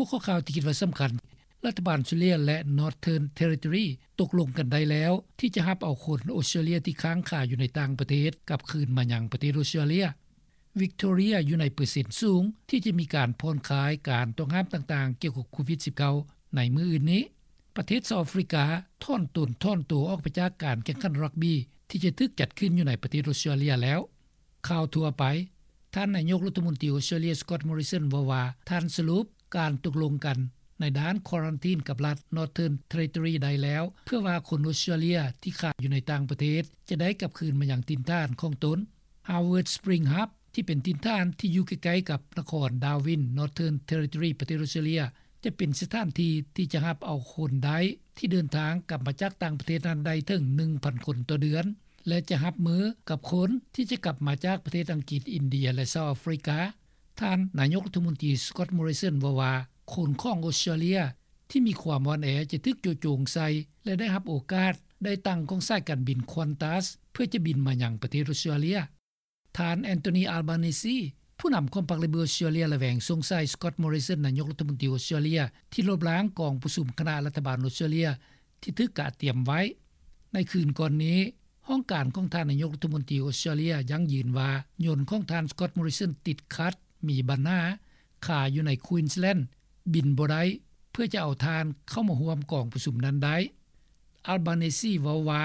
ຫົວຂໍ້ຂ່າວທີ່ຄິດວ່າສຳຄັນ ລັດຖະບານອອສເຕຣເລັຽ ແລະ Northern Territory ຕົກລົງກັນໄດ້ແລ້ວ ທີ່ຈະຮັບເອົາຄົນອອສເຕຣເລັຽທີ່ຄ້າງຄາຢູ່ໃນຕ່າງປະເທດ ກັບຄືນມາຍັງປະເທດອອສເຕຣເລັຽ. ວິກໂຕເຣຍຢູ່ໃນເປີເຊັນສູງ ທີ່ຈະມີການຜ່ອນຄາຍການຕ້ອງຫ້າມຕ່າງໆ ກ່ຽວກັບໂຄວິດ-19 ໃນມື້ອື່ນນີ້. ປະເທດເຊົາອາຟຣິກາ ຖອນຕົນຖອນໂຕອອກໄປຈາກການແຂ່ງຂັນຣັກບີ ທີ່ຈະຖືກຈັດຂຶ້ນຢູ່ໃນປະເທດອອສເຕຣເລັຽແລ້ວ. ຂ່າວທົ່ວໄປ. ທ່ານນາຍົກລັດຖະມົນຕີອອສເຕຣເລັຽ Scott Morrison ເວົ້າວ່າ ທ່ານສະຫຼຸບການຕົກລົງກັນໃນດ້ານຄວາຣັນທີນກັບລັດ Northern Territory ໄດ້ແລ້ວ ເພື່ອວ່າຄົນອອສເຕຣເລັຽທີ່ຄ້າງຢູ່ໃນຕ່າງປະເທດ ຈະໄດ້ກັບຄືນມາຍັງຖິ່ນຖານຂອງຕົນ. Howard Spring Hub ທີ່ເປັນຖິ່ນຖານທີ່ຢູ່ໃກ້ໆກັບນະຄອນ Darwin Northern Territory ປະເທດອອສເຕຣເລັຽ ຈະເປັນສະຖານທີ່ທີ່ຈະຮັບເອົາຄົນໄດ້ທີ່ເດີນທາງກັບມາຈາກຕ່າງປະເທດນັ້ນໄດ້ເຖິງ ໜຶ່ງພັນຄົນຕໍ່ເດືອນ ແລະ ຈະຮັບມືກັບຄົນທີ່ຈະກັບມາຈາກປະເທດອັງກິດ, ອິນເດຍ ແລະ ເຊົາອາຟຣິກາ. ທ່ານນາຍົກລັດຖະມົນຕີ Scott Morrison ເວົ້າວ່າ ຄົນຂອງອອສເຕຣເລັຽທີ່ມີຄວາມອ່ອນແອຈະຖືກໂຈະໂຈງໃສ່ ແລະ ໄດ້ຮັບໂອກາດໄດ້ຕັ່ງຂອງສາຍການບິນ Qantas ເພື່ອຈະບິນມາຍັງປະເທດອອສເຕຣເລັຽ. ທ່ານ Anthony Albanese ຜູ້ນຳຂອງພັກ Labor ອອສເຕຣເລັຽ ລະແວງສົງໄສ Scott Morrison ນາຍົກລັດຖະມົນຕີອອສເຕຣເລັຽ ທີ່ລົບລ້າງກອງປະຊຸມຄະນະລັດຖະບານອອສເຕຣເລັຽ ທີ່ຖືກກະກຽມໄວ້. ໃນຄືນກ່ອນນີ້ ຫ້ອງການຂອງທ່ານນາຍົກລັດຖະມົນຕີອອສເຕຣເລັຽຢັ້ງຢືນວ່າ ຍົນຂອງທ່ານ Scott Morrison ຕິດຂັດ, ມີບັນຫາ, ຄາຢູ່ໃນ Queensland ບິນບໍ່ໄດ້ ເພື່ອຈະເອົາທ່ານເຂົ້າມາຮ່ວມກອງປະຊຸມນັ້ນໄດ້. Albanese ເວົ້າວ່າ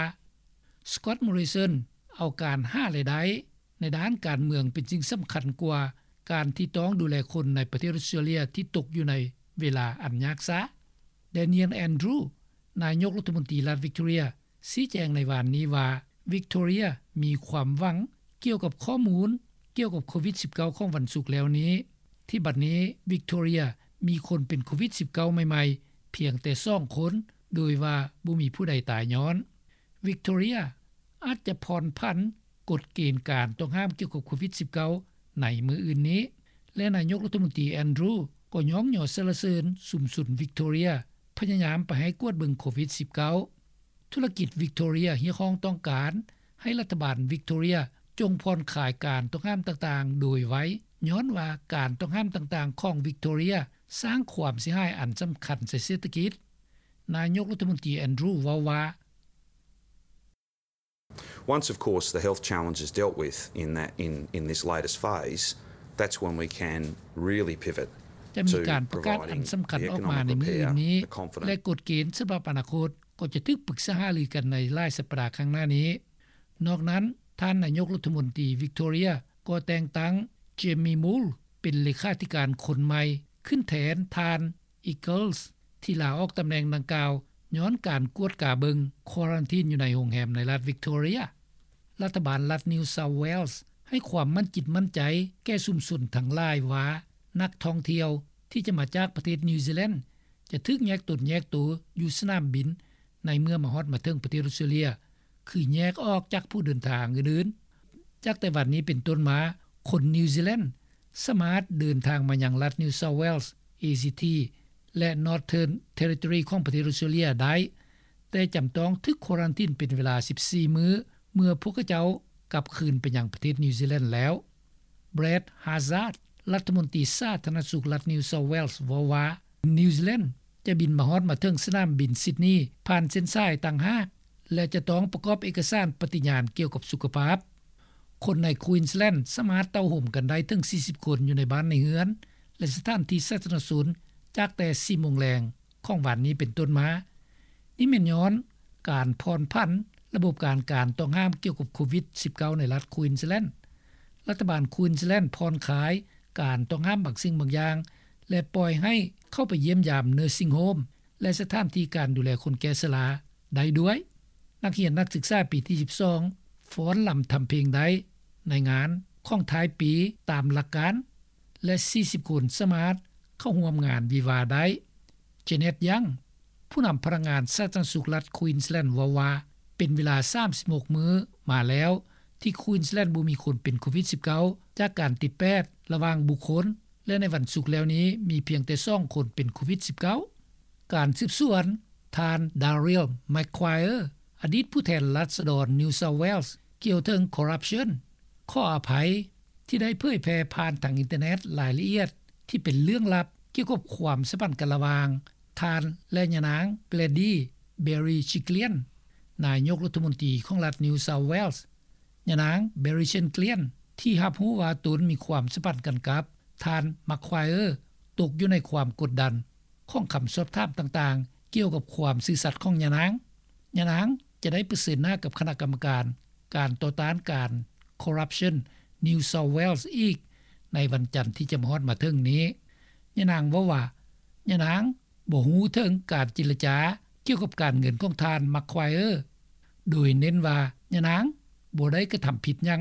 Scott Morrison ເອົາການຫາລາຍໄດ້ ໃນດ້ານການເມືອງເປັນສິ່ງສຳຄັນກວ່າການທີ່ຕ້ອງດູແລຄົນໃນປະເທດອອສເຕຣເລັຽທີ່ຕົກຢູ່ໃນເວລາອັນຍາກຊາກ. Daniel Andrews ນາຍົກລັດຖະມົນຕີລັດ Victoria ຊີ້ແຈງໃນວານນີ້ວ່າ Victoria ມີຄວາມຫວັງກ່ຽວກັບຂໍ້ມູນກ່ຽວກັບໂຄວິດ-19 ຂອງວັນສຸກແລ້ວນີ້ ທີ່ບັດນີ້ Victoria ມີຄົນເປັນໂຄວິດ-19 ໃໝ່ໆ ພຽງແຕ່ສອງຄົນ ໂດຍວ່າບໍ່ມີຜູ້ໃດຕາຍຍ້ອນ. Victoria ອາດຈະຜ່ອນຜັນກົດເກນການຕ້ອງຫ້າມກ່ຽວກັບໂຄວິດ-19 ໃນມື້ອື່ນນີ້ ແລະ ນາຍົກລັດຖະມົນຕີ Andrews ກໍຍ້ອງຍໍສັນລະເສີນຊຸມຊົນ Victoria ພະຍາຍາມໄປໃຫ້ກວດເບິ່ງໂຄວິດ-19. ທຸລະກິດ Victoria ຮຽກຮ້ອງຕ້ອງການໃຫ້ລັດຖະບານ Victoria ຈົ່ງຜ່ອນຄາຍການຕ້ອງຫ້າມຕ່າງໆໂດຍໄວ ຍ້ອນວ່າການຕ້ອງຫ້າມຕ່າງໆຂອງ Victoria ສ້າງຄວາມເສຍຫາຍອັນສຳຄັນໃສ່ເສດຖະກິດ. ນາຍົກລັດຖະມົນຕີ Andrews ເວົ້າວ່າ Once, of course, the health challenge is dealt with in that, in, in this latest phase, that's when we can really pivot ຈະມີການປະກາດອັນສຳຄັນອອກມາໃນມື້ອື່ນນີ້ ແລະ ກົດເກນສຳລັບອະນາຄົດກໍຈະຖືກປຶກສາຫາລືກັນໃນຫຼາຍສັບປະດາຂ້າງໜ້ານີ້. ນອກນັ້ນ, ທ່ານນາຍົກລັດຖະມົນຕີ Victoria ກໍແຕ່ງຕັ້ງ Jamie Moule ເປັນເລຂາທິການຄົນໃໝ່ ຂຶ້ນແທນທ່ານ Eccles ທີ່ລາອອກຕຳແໜ່ງດັ່ງກ່າວ ຍ້ອນການກວດກາເບິ່ງຄວາຣັນທີນຢູ່ໃນໂຮງແຮມໃນລັດ Victoria. ລັດຖະບານລັດ New South Wales ໃຫ້ຄວາມໝັ້ນຈິດໝັ້ນໃຈແກ່ຊຸມຊົນທັງຫຼາຍວ່າ ນັກທ່ອງທ່ຽວທີ່ຈະມາຈາກປະເທດ New Zealand ຈະຖືກແຍກຕົນແຍກໂຕຢູ່ສະໜາມບິນ ໃນເມື່ອມາຮອດມາເຖິງປະເທດອອສເຕຣເລັຽ ຄືແຍກອອກຈາກຜູ້ເດີນທາງອື່ນໆ. ຈາກແຕ່ວັນນີ້ເປັນຕົ້ນມາ, ຄົນ New Zealand ສາມາດເດີນທາງມາຍັງລັດ New South Wales, A C T ແລະ Northern Territory ຂອງປະເທດອອສເຕຣເລັຽໄດ້, ແຕ່ຈຳຕ້ອງຖືກຄວາຣັນທີນເປັນເວລາສິບສີ່ມື້ ເມື່ອພວກເຂົາເຈົ້າກັບຄືນໄປຍັງປະເທດ New Zealand ແລ້ວ. Brad Hazzard ລັດຖະມົນຕີສາທາລະນະສຸກລັດ New South Wales ເວົ້າວ່າ New Zealand ຈະບິນມາຮອດມາເຖິງສະໜາມບິນ Sydney ຜ່ານເສັ້ນສາຍຕ່າງຫາກ ແລະ ຈະຕ້ອງປະກອບເອກະສານປະຕິຍານກ່ຽວກັບສຸຂະພາບ. ຄົນໃນ Queensland ສາມາດເຕົ້າໂຮມກັນໄດ້ເຖິງສີ່ສິບຄົນ ຢູ່ໃນບ້ານໃນເຮືອນ ແລະ ສະຖານທີ່ສາທາລະນະຊົນ ຈາກແຕ່ສີ່ໂມງແລງຂອງວັນນີ້ເປັນຕົ້ນມາ. ນີ້ແມ່ນຍ້ອນການຜ່ອນຜັນລະບົບການ ການຕ້ອງຫ້າມກ່ຽວກັບໂຄວິດ-19 ໃນລັດ Queensland. ລັດຖະບານ Queensland ຜ່ອນຄາຍການຕ້ອງຫ້າມບາງສິ່ງບາງຢ່າງ ແລະ ປ່ອຍໃຫ້ເຂົ້າໄປຢ້ຽມຢາມ nursing home ແລະ ສະຖານທີ່ການດູແລຄົນແກ່ຊະລາໄດ້ດ້ວຍ. ນັກຮຽນນັກສຶກສາປີທີສິບສອງ ຟ້ອນລຳທຳເພງໄດ້ໃນງານຂອງທ້າຍປີຕາມຫຼັກການ ແລະ ສີ່ສິບຄົນສາມາດເຂົ້າຮ່ວມງານວິວາໄດ້. Janet Young ຜູ້ນຳພະນັກງານສາທາລະນະສຸກລັດ Queensland ເວົ້າວ່າ ເປັນເວລາສາມສິບຫົກມື້ມາແລ້ວ ທີ່ Queensland ບໍ່ມີຄົນເປັນໂຄວິດ-19 ຈາກການຕິດແປດລະຫວ່າງບຸກຄົນ ແລະ ໃນວັນສຸກແລ້ວນີ້ ມີພຽງແຕ່ສອງຄົນເປັນໂຄວິດ-19. ການສືບສວນ ທ່ານ Daryl McQuire ອະດີດຜູ້ແທນລາຊະດອນ New South Wales ກ່ຽວເຖິງ corruption ຂໍອະໄພທີ່ໄດ້ເຜີຍແຜ່ຜ່ານທາງອິນເຕີເນັດລາຍລະອຽດທີ່ເປັນເລື່ອງລັບ ກ່ຽວກັບຄວາມສຳພັນກັນລະຫວ່າງທ່ານ ແລະ ຍານາງ Gladys Berejiklian ນາຍົກລັດຖະມົນຕີຂອງລັດ New South Wales. ຍານາງ Berejiklian ທີ່ຮັບຮູ້ວ່າຕົນມີຄວາມສຳພັນກັນກັບທ່ານ Maguire ຕົກຢູ່ໃນຄວາມກົດດັນຂອງຄຳສອບຖາມຕ່າງໆ ກ່ຽວກັບຄວາມຊື່ສັດຂອງຍານາງ. ຍານາງຈະໄດ້ປະເຊີນໜ້າກັບຄະນະກຳມະການການຕໍ່ຕ້ານການ Corruption New South Wales ອີກໃນວັນຈັນທີ່ຈະມາຮອດມາເຖິງນີ້. ຍານາງເວົ້າວ່າ ຍານາງບໍ່ຮູ້ເຖິງການເຈລະຈາກ່ຽວກັບການເງິນຂອງທ່ານ Maguire ໂດຍເນັ້ນວ່າຍານາງບໍ່ໄດ້ກະທຳຜິດຫຍັງ.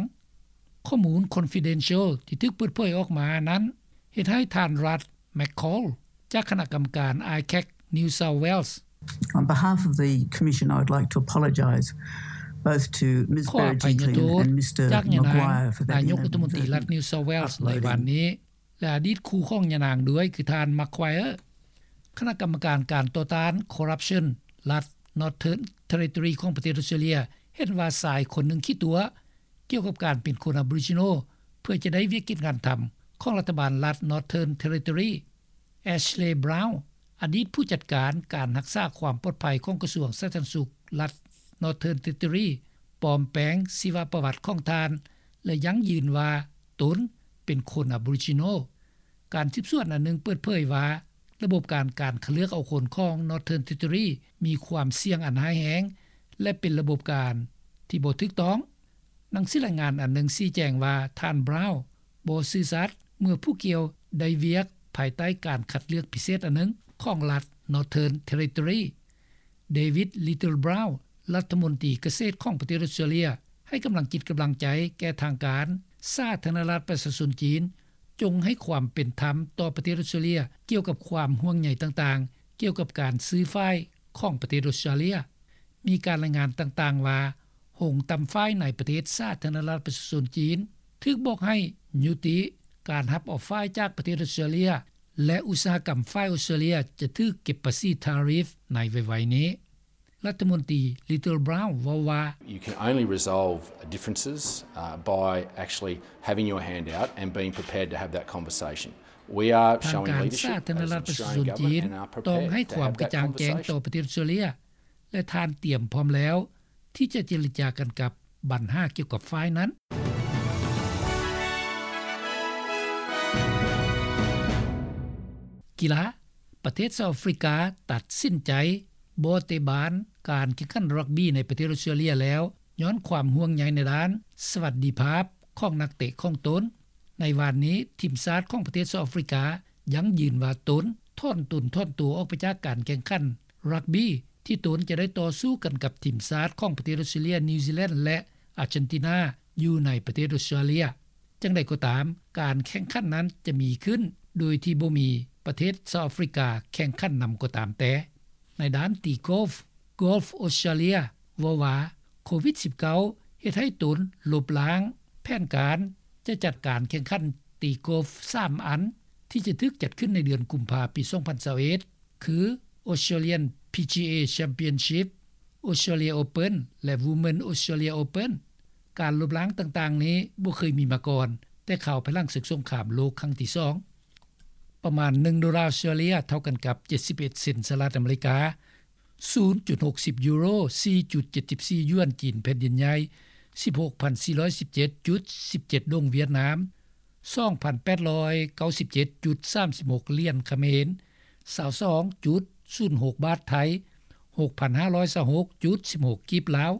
ຂໍ້ມູນ confidential ທີ່ຖືກເປີດເຜີຍອອກມານັ້ນ ເຮັດໃຫ້ທ່ານ Russ McColl ຈາກຄະນະກຳມະການ I CAC New South Wales On behalf of the Commission, I would like to apologise both to Ms ຂໍອະໄພຍະໂທດ Berejiklian and Mr ຈາກຍານາງ Maguire for that ນາຍົກລັດຖະມົນຕີລັດ New South Wales ໃນວານນີ້ ແລະ ອະດີດຄູ່ຂອງຍານາງດ້ວຍ ຄືທ່ານ Maguire. ຄະນະກຳມະການການຕໍ່ຕ້ານ Corruption ລັດ Northern Territory ຂອງປະເທດອອສເຕຣເລັຍ ເຫັນວ່າຊາຍຄົນໜຶ່ງຂີ້ຕົວະ ກ່ຽວກັບການເປັນຄົນ Aboriginal ເພື່ອຈະໄດ້ວຽກກິດງານທຳຂອງລັດຖະບານລັດ Northern Territory. Ashley Brown ອະດີດຜູ້ຈັດການການຮັກສາຄວາມປອດໄພຂອງກະຊວງສາທາລະນະສຸກລັດ Northern Territory ປອມແປງຊີວະປະຫວັດຂອງທ່ານ ແລະ ຢັ້ງຢືນວ່າຕົນເປັນຄົນ Aboriginal. ການສືບສວນອັນໜຶ່ງເປີດເຜີຍວ່າ ລະບົບການ ການຄັດເລືອກເອົາຄົນຂອງ Northern Territory ມີຄວາມສ່ຽງອັນຮ້າຍແຮງ ແລະ ເປັນລະບົບການທີ່ບໍ່ຖືກຕ້ອງ. ໜັງສືລາຍງານອັນໜຶ່ງຊີ້ແຈງວ່າ ທ່ານ Brown ບໍ່ຊື່ສັດເມື່ອຜູ້ກ່ຽວໄດ້ວຽກພາຍໃຕ້ການຄັດເລືອກພິເສດອັນໜຶ່ງຂອງລັດ Northern Territory. David Littleproud ລັດຖະມົນຕີກະເສດຂອງປະເທດອອສເຕຣເລັຍ ໃຫ້ກຳລັງຈິດກຳລັງໃຈແກ່ທາງການສາທາລະນະລັດປະຊາຊົນຈີນ ຈົ່ງໃຫ້ຄວາມເປັນທຳຕໍ່ປະເທດອອສເຕຣເລັຍ ກ່ຽວກັບຄວາມຫ່ວງໃຍຕ່າງໆ ກ່ຽວກັບການຊື້ຝ້າຍຂອງປະເທດອອສເຕຣເລັຍ. ມີການລາຍງານຕ່າງໆວ່າ ໂຮງຕ່ຳຝ້າຍໃນປະເທດສາທາລະນະລັດປະຊາຊົນຈີນ ຖືກບອກໃຫ້ຍຸຕິການຮັບເອົາຝ້າຍຈາກປະເທດອອສເຕຣເລັຍ ແລະ ອຸດສາຫະກຳຝ້າຍອອສເຕຣເລັຍຈະຖືກເກັບພາສີ tariff ໃນໄວໆນີ້. ລັດຖະມົນຕີ Littleproud ເວົ້າວ່າ You can only resolve differences, uh, by actually having your hand out and being prepared to have that conversation. We are ທາງ showing ການ leadership ສາທາລະນະລັດປະຊາຊົນຈີນ as an Australian government and are ຕ້ອງໃຫ້ຄວາມກະຈ່າງແຈ້ງຕໍ່ປະເທດອອສເຕຣເລັຍ ແລະ ທ່ານຕຽມພ້ອມແລ້ວທີ່ຈະເຈລະຈາກັນກັບບັນຫາກ່ຽວກັບຝ້າຍນັ້ນ. ກິລາ, ປະເທດເຊົາອາຟຣິກາຕັດສິນໃຈບໍ່ເຕະບານການແຂ່ງຂັນຣັກບີໃນປະເທດອອສເຕຣເລັຍແລ້ວ ຍ້ອນຄວາມຫ່ວງໃຍໃນດ້ານສະຫວັດດີພາບຂອງນັກເຕະຂອງຕົນ. ໃນວານນີ້ ທີມຊາດຂອງປະເທດເຊົາອາຟຣິກາຢັ້ງຢືນວ່າຕົນຖອນຕົນຖອນຕົວອອກໄປຈາກການແຂ່ງຂັນຣັກບີ ທີ່ຕົນຈະໄດ້ຕໍ່ສູ້ກັນກັບທີມຊາດຂອງປະເທດອອສເຕຣເລັຍ, ນິວຊີແລນ ແລະ ອາເຈນຕິນາ ຢູ່ໃນປະເທດອອສເຕຣເລັຍ. ຈັ່ງໃດກໍຕາມ, ການແຂ່ງຂັນນັ້ນຈະມີຂຶ້ນໂດຍທີ່ບໍ່ມີປະເທດເຊົາອາຟຣິກາແຂ່ງຂັນນຳກໍຕາມແຕ່. ໃນດ້ານຕີກອຟ, Golf Australia ເວົ້າວ່າ ໂຄວິດສິບເກົ້າ ເຮັດໃຫ້ຕົນລົບລ້າງແຜນການຈະຈັດການແຂ່ງຂັນຕີກອຟສາມອັນ ທີ່ຈະຖືກຈັດຂຶ້ນໃນເດືອນກຸມພາປີສອງພັນຊາວເອັດ ຄື Australian PGA Championship, Australia Open ແລະ Women Australia Open. ການລົບລ້າງຕ່າງໆນີ້ບໍ່ເຄີຍມີມາກ່ອນ ແຕ່ຄາວພາຍຫຼັງເສິກສົງຄາມໂລກຄັ້ງທີສອງ. ປະມານໜຶ່ງໂດລາອອສເຕຣເລັຍ ເທົ່າກັນກັບເຈັດສິບເອັດເຊັນສະຫະລັດອາເມລິກາ, ສູນຈຸດຫົກສິບຢູໂຣ, ສີ່ຈຸດເຈັດສິບສີ່ຢວນຈີນແຜ່ນດິນໃຫຍ່, ສິບຫົກພັນສີ່ຮ້ອຍສິບເຈັດຈຸດສິບເຈັດດົງຫວຽດນາມ, ສອງພັນແປດຮ້ອຍເກົ້າສິບເຈັດຈຸດສາມສິບຫົກຫຼຽນຂະເໝນ, ຊາວສອງຈຸດສູນຫົກບາດໄທ, ຫົກພັນຫ້າຮ້ອຍຊາວຫົກຈຸດສິບຫົກກີບລາວ,